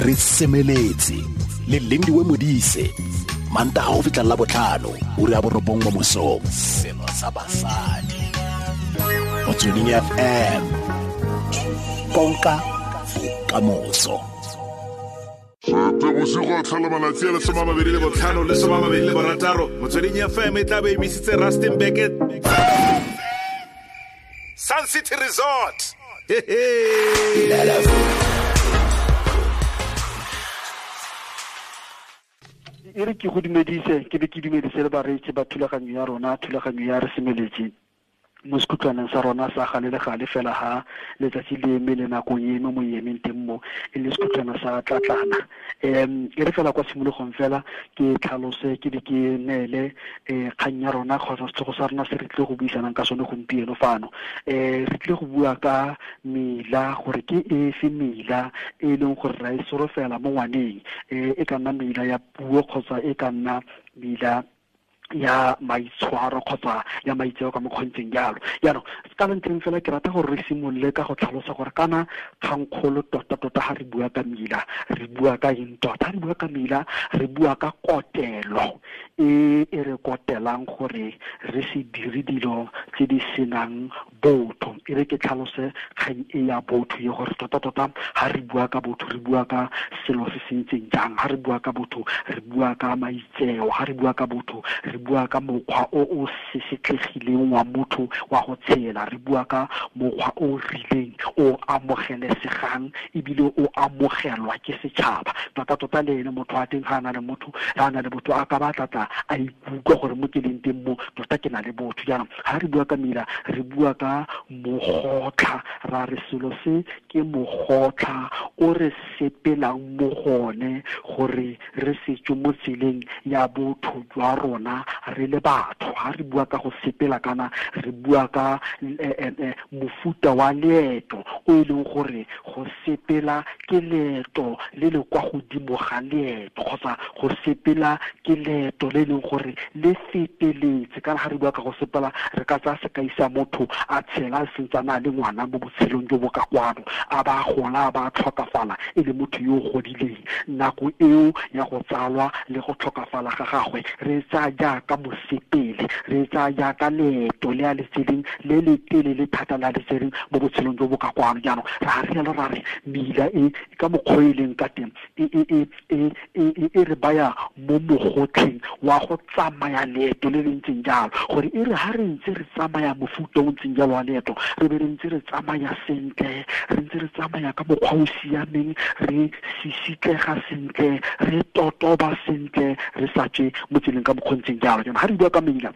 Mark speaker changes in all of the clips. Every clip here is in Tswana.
Speaker 1: Re semeletse le Lindiwe Modise, Mantaga go fitlha la botlhano, ura ya 9 mo mosong. Selo sa basadi. Motsweding FM. Konka bokamoso.
Speaker 2: Bosigo a tlhola malatsi a le 25 le 26, Motsweding FM e tla be emisitse Rustenburg Sun City Resort.
Speaker 3: E re ke go dumedise, ke be ke dumedise le bareetsi ba thulaganyo ya rona, thulaganyo ya Re Semeletse mo sekhutlwaneng sa rona sa gale le gale fela ha letsatsi le eme le nakong e eme mo e emeng teng mo, e le sekhutlwana sa tlatlana. E re fela kwa tshimologong fela ke tlhalose, ke be ke neele kgang ya rona kgotsa setlhogo sa rona se re tlile go buisanang ka sone gompieno fano. Re tlile go bua ka mela, gore ke efe mela e leng gore ra e solofela mo ngwaneng, e ka nna mela ya puo kgotsa e ka nna mela ya maitshwaro kgotsa ya maitseo ka mokgontseng jalo. Jaanong ka ntleng fela ke rata gore re simolole ka go tlhalosa gore kana kgangkgolo tota-tota ha re bua ka mela, re bua ka eng tota? Ha re bua ka mela, re bua ka kotelo e e re kotelang gore re se dire dilo tse di senang botho. E re ke tlhalose kgang e ya botho e gore tota-tota ha re bua ka botho, re bua ka selo se se ntseng jang. Ha re bua ka botho, re bua ka maitseo. Ha re bua ka botho, re bua ka mokgwa o o sesetlegileng wa motho wa go tshela. Re bua ka mokgwa o rileng o amogelesegang ebile o amogelwa ke setšhaba. Tota-tota le ene motho wa teng ga a na le motho, ga a na le botho, a ka ba tlatla a ikutlwa gore mo ke leng teng mo tota ke na le botho. Jaanong ga re bua ka mela, re bua ka mogotlha. Ra re selo se ke mogotlha o re sepelang mo gone gore re se tswe mo tseleng ya botho jwa rona re le batho. Ha re bua ka go sepela kana re bua ka mofuta wa leeto o e leng gore go sepela ke leeto le le kwa godimo ga leeto, kgotsa go sepela ke leeto le e leng gore le feteletse. Kana ha re bua ka go sepela, re ka tsaya sekai sa motho a tshela a sentsana a le ngwana mo botshelong jo bo ka kwano, a ba gola, a ba tlhokafala e le motho yo o godileng. Nako eo ya go tsalwa le go tlhokafala ga gagwe re tsaya jaaka mosepele, re tsaya jaaka leeto le a le tseleng le le telele thata le a le tsereng mo botshelong jo bo ka kwano. Jaanong ra re jalo, ra re mela e ka mokgwa e leng ka teng e re baya mo mogotlheng wa go tsamaya leeto le le ntseng jalo, gore e re ha re ntse re tsamaya mofuta o ntseng jalo wa leeto, re be re ntse re tsamaya sentle, re ntse re tsamaya ka mokgwa o siameng, re sisitlega sentle, re totoba sentle, re sa tswe mo tseleng ka mokgwa o ntseng jalo. Jaanong ha re bua ka mela,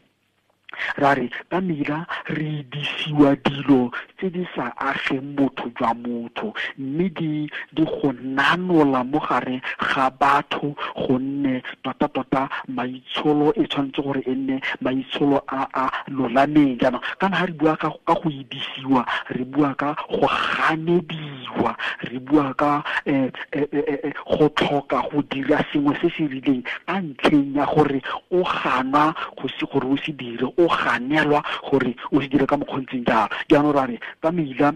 Speaker 3: ra re ka mela re disiwa dilo tse di sa ageng botho jwa motho, mme di go nanola mo gare ga batho, gonne tota-tota maitsholo e tshwanetse gore e nne maitsholo a a lolameng. Jaanong kana ha re bua ka go idisiwa, re bua ka go ganediwa, re bua ka go tlhoka go dira sengwe se se rileng ka ntlheng ya gore o ganwa go se gore o se dire, o ganelwa gore o se dire ka mokgwa o ntseng jalo. Jaanong ra re ka mela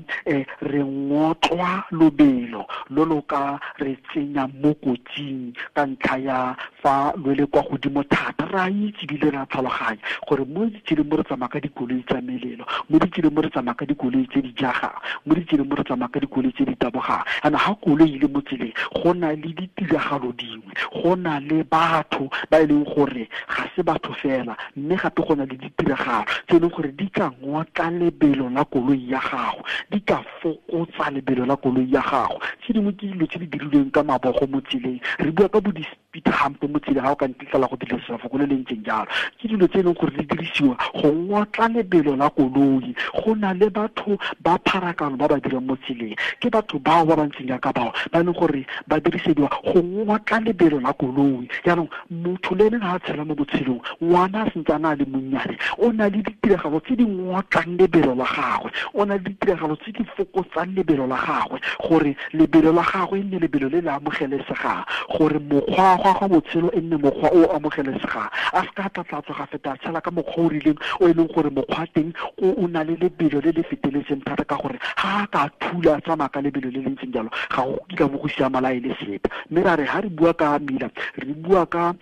Speaker 3: re ngotlwa lobelo lo lo ka re tsenya mo kotsing ka ntlha ya fa lo le kwa godimo thata. Re a itse ebile re a tlhaloganya gore mo ditseleng mo re tsamaya ka dikoloi tsa melelo, mo ditseleng mo re tsamaya ka dikoloi tse di jagang, mo ditseleng mo re tsamaya ka dikoloi tse di tabogang. Jaanong ha koloi e le mo tseleng, go na le ditiragalo dingwe, go na le batho ba e leng gore ga se batho fela, mme gape go na le ditiragalo tse e leng gore di ka ngotla lebelo la koloi ya gago, di ka fokotsa lebelo la koloi ya gago. Tse dingwe ke dilo tse di dirilweng ka mabogo mo tseleng, re bua ka bo di-speed hump mo tseleng, ha o ka ntletlela go dirisa lefoko le le ntseng jalo. Ke dilo tse e leng gore di dirisiwa go ngotla lebelo la koloi. Go na le batho ba pharakano ba ba dirang mo tseleng, ke batho bao ba ba ntseng jaaka bao ba e leng gore ba dirisediwa go ngotla lebelo la koloi. Jaanong motho le ene ha a tshela mo botshelong, ngwana a sentse a na le monnyane, o na le ditiragalo tse di ngotlang lebelo la gagwe, o na le ditiragalo tse di fokotsang lebelo la gagwe, gore lebelo la gagwe e nne lebelo le le amogelesegang, gore mokgwa wa go Mokgwa wa botshelo e nne mokgwa o amogelesegang, a se ka tlatlatswa ga feta a tshela ka mokgwa o rileng o e leng gore mokgwa teng o na le lebelo le le feteletseng thata, ka gore ga a ka thula a tsamaya ka lebelo le le ntseng jalo ga go kitla bo go siama la e le sepe. Mme ra re ga re bua ka mila, re bua ka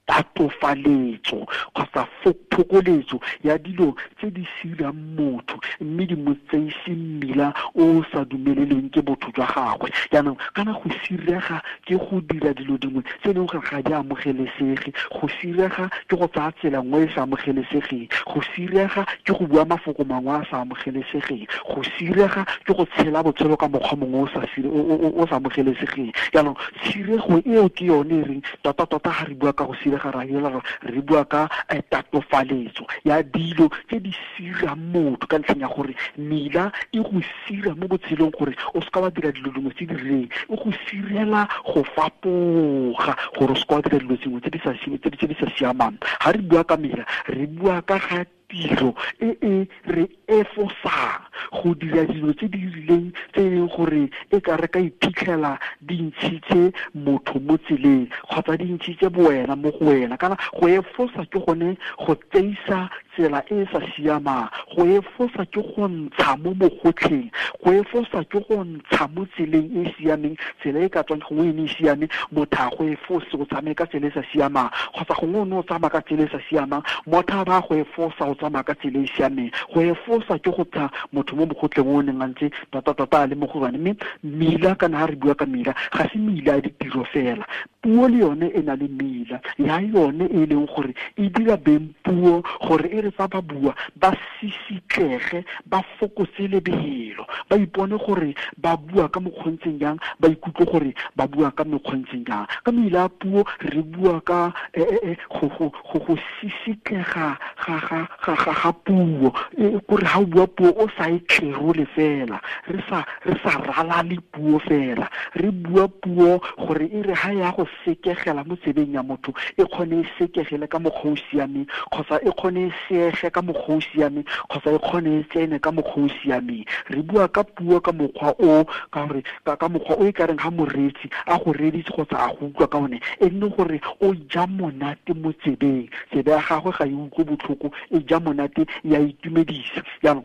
Speaker 3: tatofaletso kgotsa phokoletso ya dilo tse di sirang motho mme di mo tseise mmila o sa dumeleleng ke botho jwa gagwe. Jaanong kana go sirega ke go dira dilo dingwe tse e leng gore ga di amogelesege, go sirega ke go tsaya tsela nngwe e sa amogelesegeng, go sirega ke go bua mafoko mangwe a sa amogelesegeng, go sirega ke go tshela botshelo ka mokgwa mongwe o sa amogelesegeng. Jaanong tshirego eo ke yone e reng tota-tota ga re bua ka go sirega ra ela re bua ka tatofaletso ya dilo tse di sirang motho, ka ntlheng ya gore mela e go sira mo botshelong gore o seka wa dira dilo dingwe tse di rileng, e go sirela go fapoga gore o seka wa dira dilo dingwe tse di sa siamang. Ga re bua ka mela, re bua ka ga tiro e e re efosang go dira dilo tse di rileng tse e leng gore e ka re ka iphitlhela di ntshitse motho mo tseleng kgotsa di ntshitse bowena mo go wena. Kana go efosa ke gone go tseisa tsela e e sa siamang, go efosa ke go ntsha mo mogotlheng, go efosa ke go ntsha mo tseleng e e siameng, tsela e ka tswang gongwe e ne e siame, motho a go efose o tsamaye ka tsela e sa siamang, kgotsa gongwe o ne o tsamaya ka tsela e sa siamang, motho a ba go efosa o tsamaya ka tsela e e siameng. Go efosa ke go tsha motho mo mogotleng o neng a ntse tota-tota a le mo go yone. Mme mila, kana ha re bua ka mila, ga se mila ya ditiro fela, puo le yone e na le mila ya yone e leng gore e dira beng puo gore e re fa ba bua ba sisitlege, ba fokotse lebelo, ba ipone gore ba bua ka mokgontseng jang, ba ikutlwe gore ba bua ka mekgontseng jang. Ka mila ya puo re bua ka go sisitlega ga puo, kore ha o bua puo o sa e tlerole fela, re sa ralale puo fela, re bua puo gore e re ha ya go sekegela mo tsebeng ya motho e kgone e sekegele ka mokgwa o siameng, kgotsa e kgone e seege ka mokgwa o siameng, kgotsa e kgone e tsene ka mokgwa o siameng. Re bua ka puo ka mokgwa o, ka gore ka mokgwa o e ka reng ha moreetsi a go reeditse kgotsa a go utlwa ka one, e nne gore o ja monate mo tsebeng, tsebe ya gagwe ga e utlwe botlhoko, e ja monate, ya itumedisa. Jaanong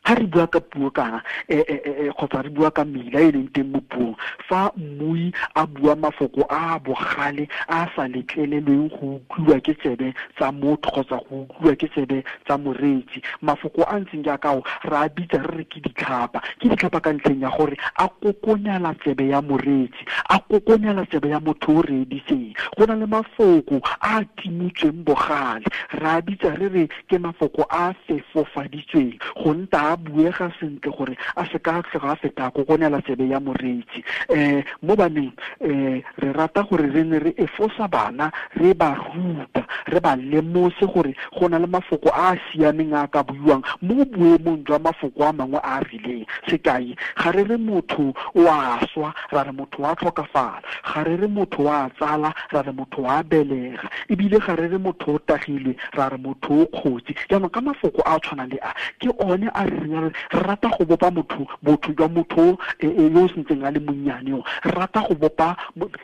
Speaker 3: ha re bua ka puo kana kgotsa re bua ka mela e leng teng mo puong, fa mmui a bua mafoko a bogale a sa letlelelweng go utlwiwa ke tsebe tsa motho kgotsa go utlwiwa ke tsebe tsa moreetsi, mafoko a ntseng jaaka ao re a bitsa re re ke ditlhapa. Ke ditlhapa ka ntlheng ya gore a kokonyala tsebe ya moreetsi, a kokonyala tsebe ya motho o reeditseng. Go na le mafoko a timotsweng bogale, re a bitsa re re ke mafoko a fefofaditsweng go nta a buega sentle gore a se ka tloga a feta a kokonela tsebe ya moreetsi. Mo baneng re rata gore re ne re efosa bana, re ba ruta, re ba lemose gore go na le mafoko a a siameng a ka buiwang mo boemong jwa mafoko a mangwe a a rileng. Sekai, ga re re motho o a swa, ra re motho wa tlhokafala, ga re re motho wa tsala, ra re motho wa belega, ebile ga re re motho o tagilwe, ra re motho o kgotsi. Jaanong ka mafoko a tshwanang le a, ke one a re reng re rata go bopa motho, botho jwa motho yo o sentseng a le monnyane o, re rata go bopa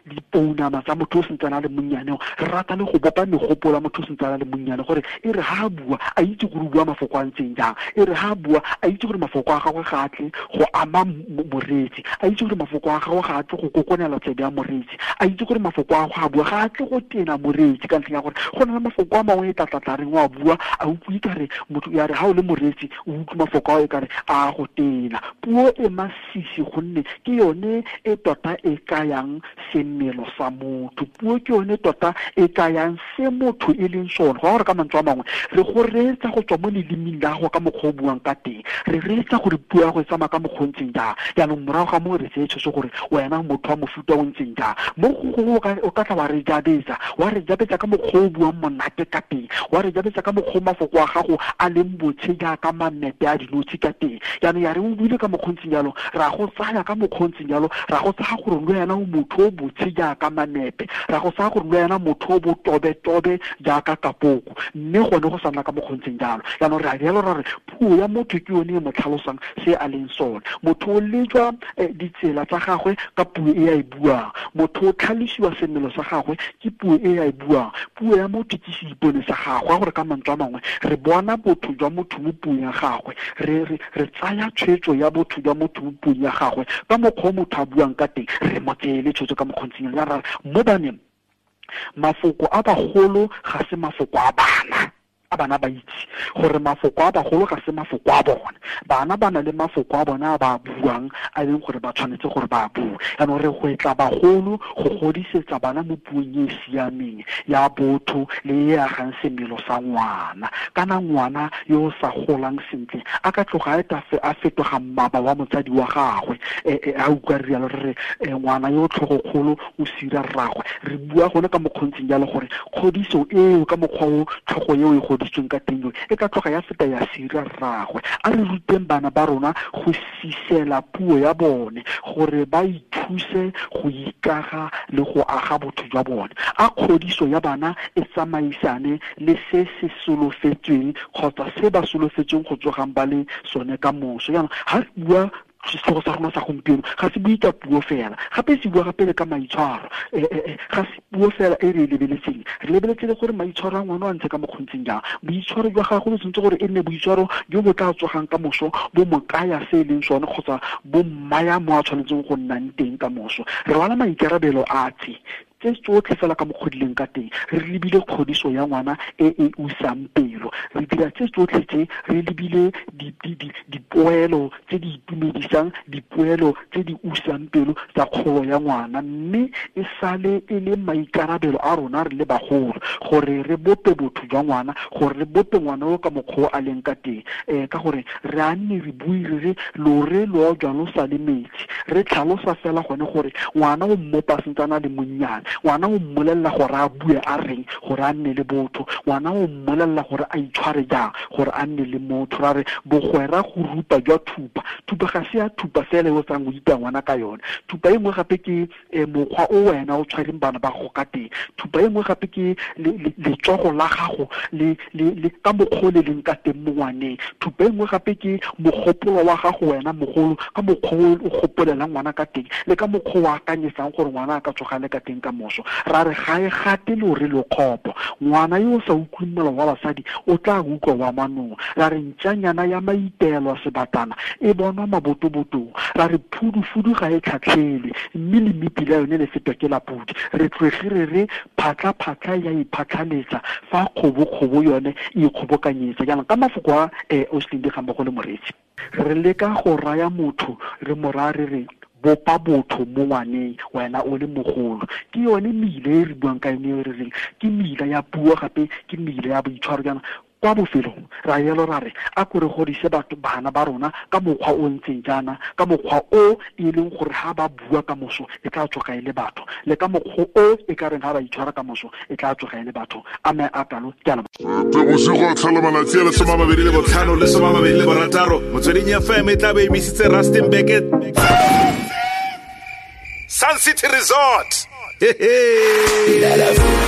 Speaker 3: dipounama tsa motho o sentseng a le monnyane o, re rata le go bopa megopolo ya motho o sentseng a le monnyane, gore e re ha a bua a itse gore o bua mafoko a ntseng jang, e re ha a bua a itse gore mafoko a gagwe ga a tle go ama moreetsi, a itse gore mafoko a gagwe ga a tle go kokonela tsebe ya moreetsi, a itse gore mafoko a gagwe a bua ga a tle go tena moreetsi, ka ntlheng ya gore go na le mafoko a mangwe e tlatlatla reng o a bua a utlwe kare motho ya re ha o le moreetsi o utlwe mafoko ao e kare a go tena. Puo e masisi gonne ke yone e tota e kayang semelo sa motho, puo ke yone tota e kayang se motho e leng sone. Go gore ka mantswe a mangwe re go reetsa go tswa mo lelemeng la gago ka mokgwa o buang ka teng, re reetsa gore puo ya go e tsamaya ka mokgwa o ntseng jang. Jaanong morago ga moo re tseye tshwetso gore wena motho wa mofuta o ntseng jang. Mo gongwe o ka tla wa re jabetsa ka mokgwa o buang monate ka teng, wa re jabetsa ka mokgwa o mafoko a gago a leng botshe jaaka mamepe a dinotshe. notshe ka teng. Jaanong ya re o buile ka mokgontseng jalo, ra go tsaya ka mokgontseng jalo, ra go tsaya gore le wena o motho o botshe jaaka manepe, ra go tsaya gore le wena motho o botobetobe jaaka kapoko, mme gone go sa nna ka mokgontseng jalo. Jaanong re a jalo ra re puo ya motho ke yone e mo tlhalosang se a leng sone. Motho o lejwa ditsela tsa gagwe ka puo e a e buang, motho o tlhalosiwa semelo sa gagwe ke puo e a e buang. Puo ya motho ke seipone sa gagwe, gore ka mantswe a mangwe re bona botho jwa motho mo puong ya gagwe, re tsaya tshwetso ya botho jwa motho mo puong ya gagwe ka mokgwa o motho a buang ka teng, re mo tseele tshwetso ka mokgontseng. Ya ra mo baneng, mafoko a bagolo ga se mafoko a bana, a bana ba itse gore mafoko a bagolo ga se mafoko a bone. Bana ba na le mafoko a bona a ba buang a leng gore ba tshwanetse gore ba bue. Jaanong re gwetla bagolo go godisetsa bana mo puong e e siameng ya botho le e agang semelo sa ngwana. Kana ngwana yo o sa golang sentle a ka tloga a fetoga mmaba wa motsadi wa gagwe. A utlwa re rialo re re ngwana yo tlhogokgolo o sira rragwe. Re bua gone ka mokgontseng jalo gore kgodiso eo ka mokgwa o tlhogo eo e godisitsweng ka teng e ka tloga ya feta ya sira rragwe. A re ruteng bana ba rona go sisela puo ya bone gore ba ithuse go ikaga le go aga botho jwa bone. A kgodiso ya bana e tsamaisane le se se solofetsweng kgotsa se ba solofetsweng go tsogang ba le sone ka moso. Jaanong ga re bua setlhogo sa rona sa gompieno ga se bue ka puo fela, gape se bua gape le ka maitshwaro. Ga se puo fela e re e lebeletseng, re lebeletse le gore maitshwaro a ngwana a ntse ka mokgontseng jang. Boitshwaro jwa gagwe bo tshwanetse gore e nne boitshwaro jo bo tla tsogang ka moso bo mo kaya se e leng sone kgotsa bo mmaya mo a tshwanetseng go nnang teng ka moso. Re rwala maikarabelo a tse tsotlhe fela ka mokgodileng ka teng, re lebile kgodiso ya ngwana e e usang pelo. Re dira tse tsotlhe tse re lebile dipoelo tse di itumedisang, dipoelo tse di usang pelo tsa kgolo ya ngwana, mme e sale e le maikarabelo a rona re le bagolo gore re bope botho jwa ngwana, gore re bope ngwana o ka mokgwa o a leng ka teng. Ka gore re a nne re bue re re lore lo jwa lo sa le metsi, re tlhalosa fela gone gore ngwana o mmopa sentse a le monnyane, ngwana o mmolelela gore a bue a reng gore a nne le botho, ngwana o mmolelela gore a itshware jang gore a nne le motho. Ra re bogwera go rupa jwa thupa, thupa ga se ya thupa fela e o tsang o ita ngwana ka yone. Thupa e nngwe gape ke mokgwa o wena o tshwereng bana ba gago ka teng. Thupa e nngwe gape ke letsogo la gago le ka mokgwa o le leng ka teng mo ngwaneng. Thupa e nngwe gape ke mogopolo wa gago wena mogolo ka mokgwa o gopolelang ngwana ka teng le ka mokgwa o akanyetsang gore ngwana a ka tsoga le ka teng ka moso. Ra re ga e gate lore lo kgopo, ngwana yo o sa utlweng molao wa basadi o tla utlwa wa manong. Ra re ntšanyana ya maitelo a sebatana e bonwa mabotobotong. Ra re phudufudu ga e tlhatlhelwe mme le mepila yone le fetwa ke la pudi. Re tloge re re phatlha-phatlha ya iphatlhaletsa fa kgobo-kgobo yone e ikgobokanyetsa. Jaanong ka mafoko a Oslin di gammogo le moreetsi, re leka go raya motho re mo raya re re bopa botho mo ngwaneng wena o le mogolo. Ke yone meile e re buang ka yone e re reng ke meila ya puo gape ke meile ya boitshwaro. Jaana kwa bofelong ra yelo ra re a ko re godise batho bana ba rona ka mokgwa o ntseng jaana, ka mokgwa o e leng gore ha ba bua ka moso e tla tsoga e le batho, le ka mokgwa o e ka reng ha ba itshwara ka moso e tla tsoga e le batho. A me a kalo ke a leboga.
Speaker 2: Bosigo tlhola malatsi a le 25 le 26 Motsweding FM e tla be e emisitse Rustenburg Sun City Resort. Hey, hey.